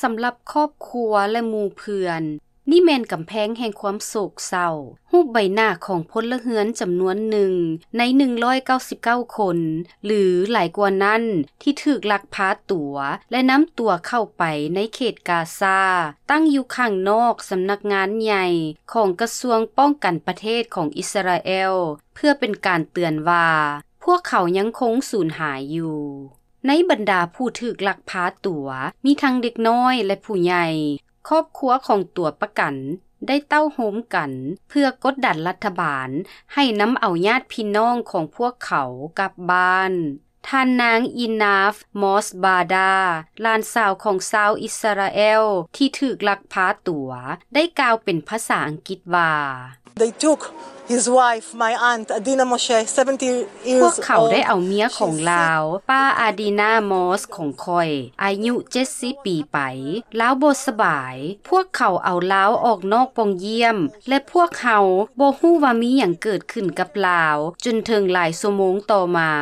ສຳລັບຄອບຄົວ ແລະ ໝູ່ເພື່ອນ, ນີ້ແມ່ນກຳແພງແຫ່ງຄວາມໂສກເສົ້າ. ຮູບໃບໜ້າຂອງພົນລະເຮືອນຈຳນວນໜຶ່ງໃນໜຶ່ງຮ້ອຍເກົ້າສິບເກົ້າຄົນ ຫຼື ຫຼາຍກວ່ານັ້ນ ທີ່ຖືກລັກພາຕົວ ແລະ ນຳຕົວເຂົ້າໄປໃນເຂດກາຊາ, ຕັ້ງຢູ່ຂ້າງນອກສຳນັກງານໃຫຍ່ຂອງກະຊວງປ້ອງກັນປະເທດຂອງອິດສະຣາແອລ ເພື່ອເປັນການເຕືອນວ່າ ພວກເຂົາຍັງຄົງສູນຫາຍຢູ່. ໃນບັນດາຜູ້ຖືກລັກພາຕົວ ມີທັງເດັກນ້ອຍ ແລະ ຜູ້ໃຫຍ່. ຄອບຄົວຂອງຕົວປະກັນໄດ້ເຕົ້າໂຮມກັນເພື່ອກົດດັນລັດຖະບານໃຫ້ນຳເອົາຍາດພີ່ນ້ອງຂອງພວກເຂົາກັບບ້ານ. ທ່ານນາງ ອີນາຟ ມອສບາດາ ຫຼານສາວຂອງຊາວອິດສະຣາແອລທີ່ຖືກລັກພາຕົວ ໄດ້ກ່າວເປັນພາສາອັງກິດວ່າ They took his wife, my aunt, Adina Moshe, seventy years old. ພວກເຂົາໄດ້ເອົາເມຍຂອງລາວ, ປ້າ ອາດີນາ ມອສ ຂອງຂ້ອຍ, ອາຍຸເຈັດສິບປີໄປ. ລາວບໍ່ສະບາຍ. ພວກເຂົາເອົາລາວອອກນອກປ່ອງຢ້ຽມ ແລະ ພວກເຮົາບໍ່ຮູ້ວ່າມີຫຍັງເກີດຂຶ້ນກັບລາວ ຈົນເຖິງຫຼາຍຊົ່ວໂມງຕໍ່ມາ.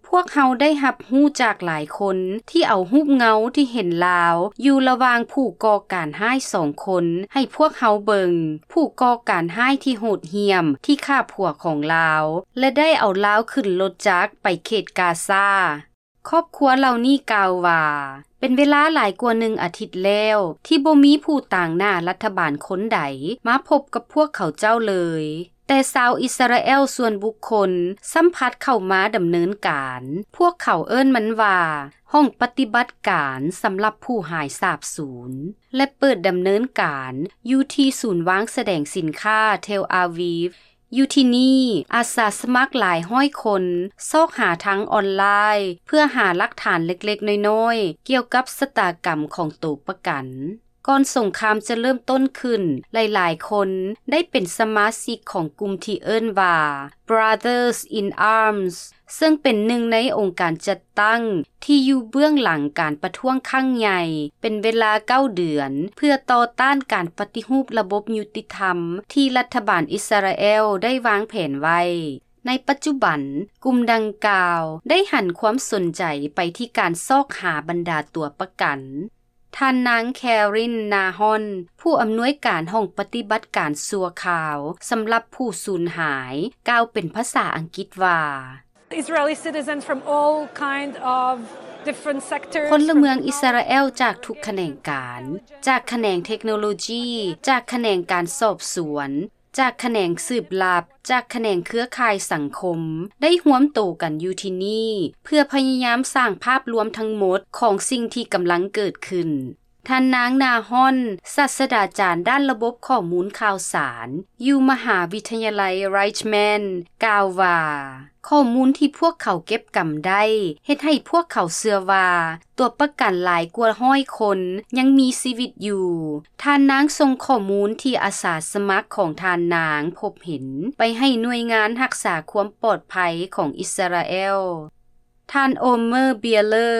ພວກເຮົາໄດ້ຮັບຮູ້ຈາກຫຼາຍຄົນທີ່ເອົາຮູບເງົາທີ່ເຫັນລາວຢູ່ລະຫວ່າງຜູ້ກໍ່ການຮ້າຍສອງຄົນໃຫ້ພວກເຮົາເບິ່ງ, ຜູ້ກໍ່ການຮ້າຍທີ່ໂຫດຫ້ຽມທີ່ຂ້າຜົວຂອງລາວ ແລະ ໄດ້ເອົາລາວຂຶ້ນລົດຈັກໄປເຂດກາຊາ. ຄອບຄົວເຫຼົ່ານີ້ກ່າວວ່າ ເປັນເວລາຫຼາຍກວ່າໜຶ່ງອາທິດແລ້ວ ທີ່ບໍ່ມີຜູ້ຕາງໜ້າລັດຖະບານຄົນໃດມາພົບກັບພວກເຂົາເຈົ້າເລີຍ. ແຕ່ຊາວອິດສະຣາແອລສ່ວນບຸກຄົນຊ້ຳພັດເຂົ້າມາດຳເນີນການ. ພວກເຂົາເອີ້ນມັນວ່າ ຫ້ອງປະຕິບັດການສຳລັບຜູ້ຫາຍສາບສູນ ແລະ ເປີດດຳເນີນການຢູ່ທີ່ສູນວາງສະແດງສິນຄ້າເທລອາວີຟ. ຢູ່ທີ່ນີ້, ອາສາສະໝັກຫຼາຍຮ້ອຍຄົນຊອກຫາທາງອອນລາຍ ເພື່ອຫາຫຼັກຖານເລັກໆນ້ອຍໆກ່ຽວກັບຊະຕາກຳຂອງໂຕປະກັນ. ກ່ອນສົງຄາມຈະເລີ່ມຕົ້ນຂຶ້ນ, ຫຼາຍໆຄົນໄດ້ເປັນສະມາຊິກຂອງກຸ່ມທີ່ເອີ້ນວ່າ Brothers in Arms ເຊິ່ງເປັນໜຶ່ງໃນອົງການຈັດຕັ້ງທີ່ຢູ່ເບື້ອງຫຼັງການປະທ້ວງຄັ້ງໃຫຍ່ ເປັນເວລາເກົ້າເດືອນ ເພື່ອຕໍ່ຕ້ານການປະຕິຮູບລະບົບຍຸຕິທຳທີ່ລັດຖະບານອິດສະຣາແອລໄດ້ວາງແຜນໄວ້. ໃນປັດຈຸບັນ, ກຸ່ມດັ່ງກ່າວໄດ້ຫັນຄວາມສົນໃຈໄປທີ່ການຊອກຫາບັນດາຕົວປະກັນ. ທ່ານນາງ ແຄຣິນ ນາຮອນ ຜູ້ອຳນວຍການຫ້ອງປະຕິບັດການຊົ່ວຄາວສຳລັບຜູ້ສູນຫາຍ ກ່າວເປັນພາສາອັງກິດວ່າ Israeli citizens from all kind of different sectors, ພົນລະເມືອງອິດສະຣາແອລຈາກທຸກຂະແໜງການ, ຈາກຂະແໜງເທັກໂນໂລຈີ, ຈາກຂະແໜງການສອບສວນ, ຈາກຂະແໜງສືບລັບ, ຈາກຂະແໜງເຄືອຂ່າຍສັງຄົມ ໄດ້ຮວມໂຕກັນຢູ່ທີ່ນີ້ ເພື່ອພະຍາຍາມສ້າງພາບລວມທັງໝົດຂອງສິ່ງທີ່ກຳລັງເກີດຂຶ້ນ. ທ່ານນາງ ນາຮອນ ສາດສະດາຈານດ້ານລະບົບຂໍ້ມູນຂ່າວສານ ຢູ່ມະຫາວິທະຍາໄລ Reichman ກ່າວວ່າ ຂໍ້ມູນທີ່ພວກເຂົາເກັບກຳໄດ້ ເຮັດໃຫ້ພວກເຂົາເຊື່ອວ່າ ຕົວປະກັນຫຼາຍກວ່າຮ້ອຍຄົນຍັງມີຊີວິດຢູ່. ທ່ານນາງສົ່ງຂໍ້ມູນທີ່ອາສາສະໝັກຂອງທ່ານນາງພົບເຫັນ ໄປໃຫ້ໜ່ວຍງານຮັກສາຄວາມປອດໄພຂອງອິດສະຣາແອລ. ທ່ານ ໂອເມີ ເບຍເລີ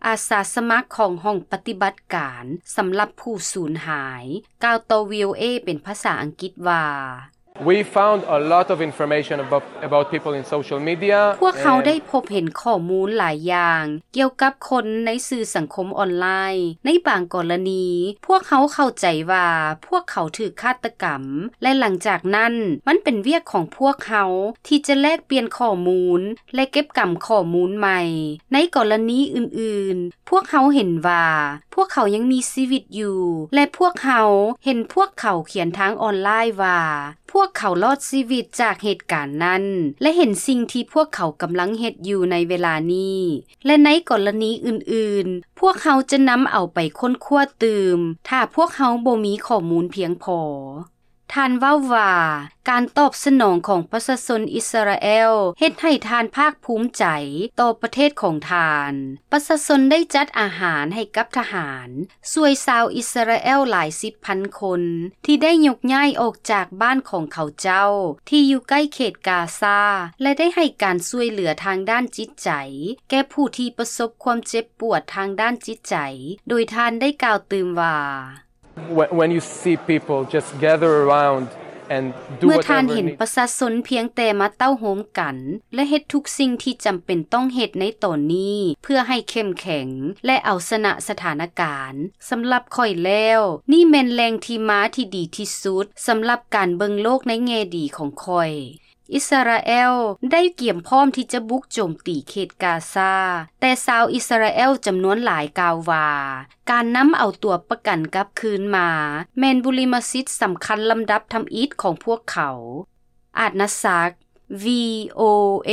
ອາສາສະໝັກຂອງຫ້ອງປະຕິບັດການສຳລັບຜູ້ສູນຫາຍ ກ່າວຕໍ່ ວີໂອເອ ເປັນພາສາອັງກິດວ່າ We found a lot of information about, about people in social media. ພວກເຮົາໄດ້ພົບເຫັນຂໍ້ມູນຫຼາຍຢ່າງກ່ຽວກັບຄົນໃນສື່ສັງຄົມອອນລາຍ. ໃນບາງກໍລະນີ, ພວກເຮົາເຂົ້າໃຈວ່າພວກເຂົາຖືກຄາດຕະກຳ ແລະ ຫຼັງຈາກນັ້ນ, ມັນເປັນວຽກຂອງພວກເຮົາທີ່ຈະແລກປ່ຽນຂໍ້ມູນ ແລະ ເກັບກຳຂໍ້ມູນໃໝ່. ໃນກໍລະນີອື່ນໆ, ພວກເຮົາເຫັນວ່າພວກເຂົາຍັງມີຊີວິດຢູ່ ແລະ ພວກເຮົາເຫັນພວກເຂົາຂຽນທາງອອນລາຍວ່າ ພວກເຂົາລອດຊີວິດຈາກເຫດການນັ້ນ ແລະ ເຫັນສິ່ງທີ່ພວກເຂົາກຳລັງເຮັດຢູ່ໃນເວລານີ້ ແລະ ໃນກໍລະນີອື່ນໆ, ພວກເຮົາຈະນຳເອົາໄປຄົ້ນຄວ້າຕື່ມ ຖ້າພວກເຮົາບໍ່ມີຂໍ້ມູນພຽງພໍ. ທ່ານເວົ້າວ່າ ການຕອບສະໜອງຂອງປະຊາຊົນອິດສະຣາແອລເຮັດໃຫ້ທ່ານພາກພູມໃຈຕໍ່ປະເທດຂອງທ່ານ. ປະຊາຊົນໄດ້ຈັດອາຫານໃຫ້ກັບທະຫານ, ຊ່ວຍຊາວອິດສະຣາແອລຫຼາຍສິບພັນຄົນ ທີ່ໄດ້ຍົກຍ້າຍອອກຈາກບ້ານຂອງເຂົາເຈົ້າທີ່ຢູ່ໃກ້ເຂດກາຊາ ແລະ ໄດ້ໃຫ້ການຊ່ວຍເຫຼືອທາງດ້ານຈິດໃຈແກ່ຜູ້ທີ່ປະສົບຄວາມເຈັບປວດທາງດ້ານຈິດໃຈ, ໂດຍທ່ານໄດ້ກ່າວຕື່ມວ່າ When, when you see people just gather around เมื่อท่านเห็นประชาชนเพียงแต่มาเต้าโฮมกัน และเฮ็ดทุกสิ่งที่จำเป็นต้องเฮ็ดในตอนนี้ เพื่อให้เข้มแข็ง และเอาชนะสถานการณ์ สำหรับข้อยแล้ว นี่แม่นแหล่งที่มาที่ดีที่สุด สำหรับการเบิ่งโลกในแง่ดีของข้อย อิสราเอลได้เตรียมพร้อมที่จะบุกโจมตีเขตกาซา แต่ชาวอิสราเอลจำนวนหลายกล่าวว่า การนำเอาตัวประกันกลับคืนมา แม่นบุริมสิทธิ์สำคัญลำดับทำอิฐของพวกเขา อาดนาซัก วีโอเอ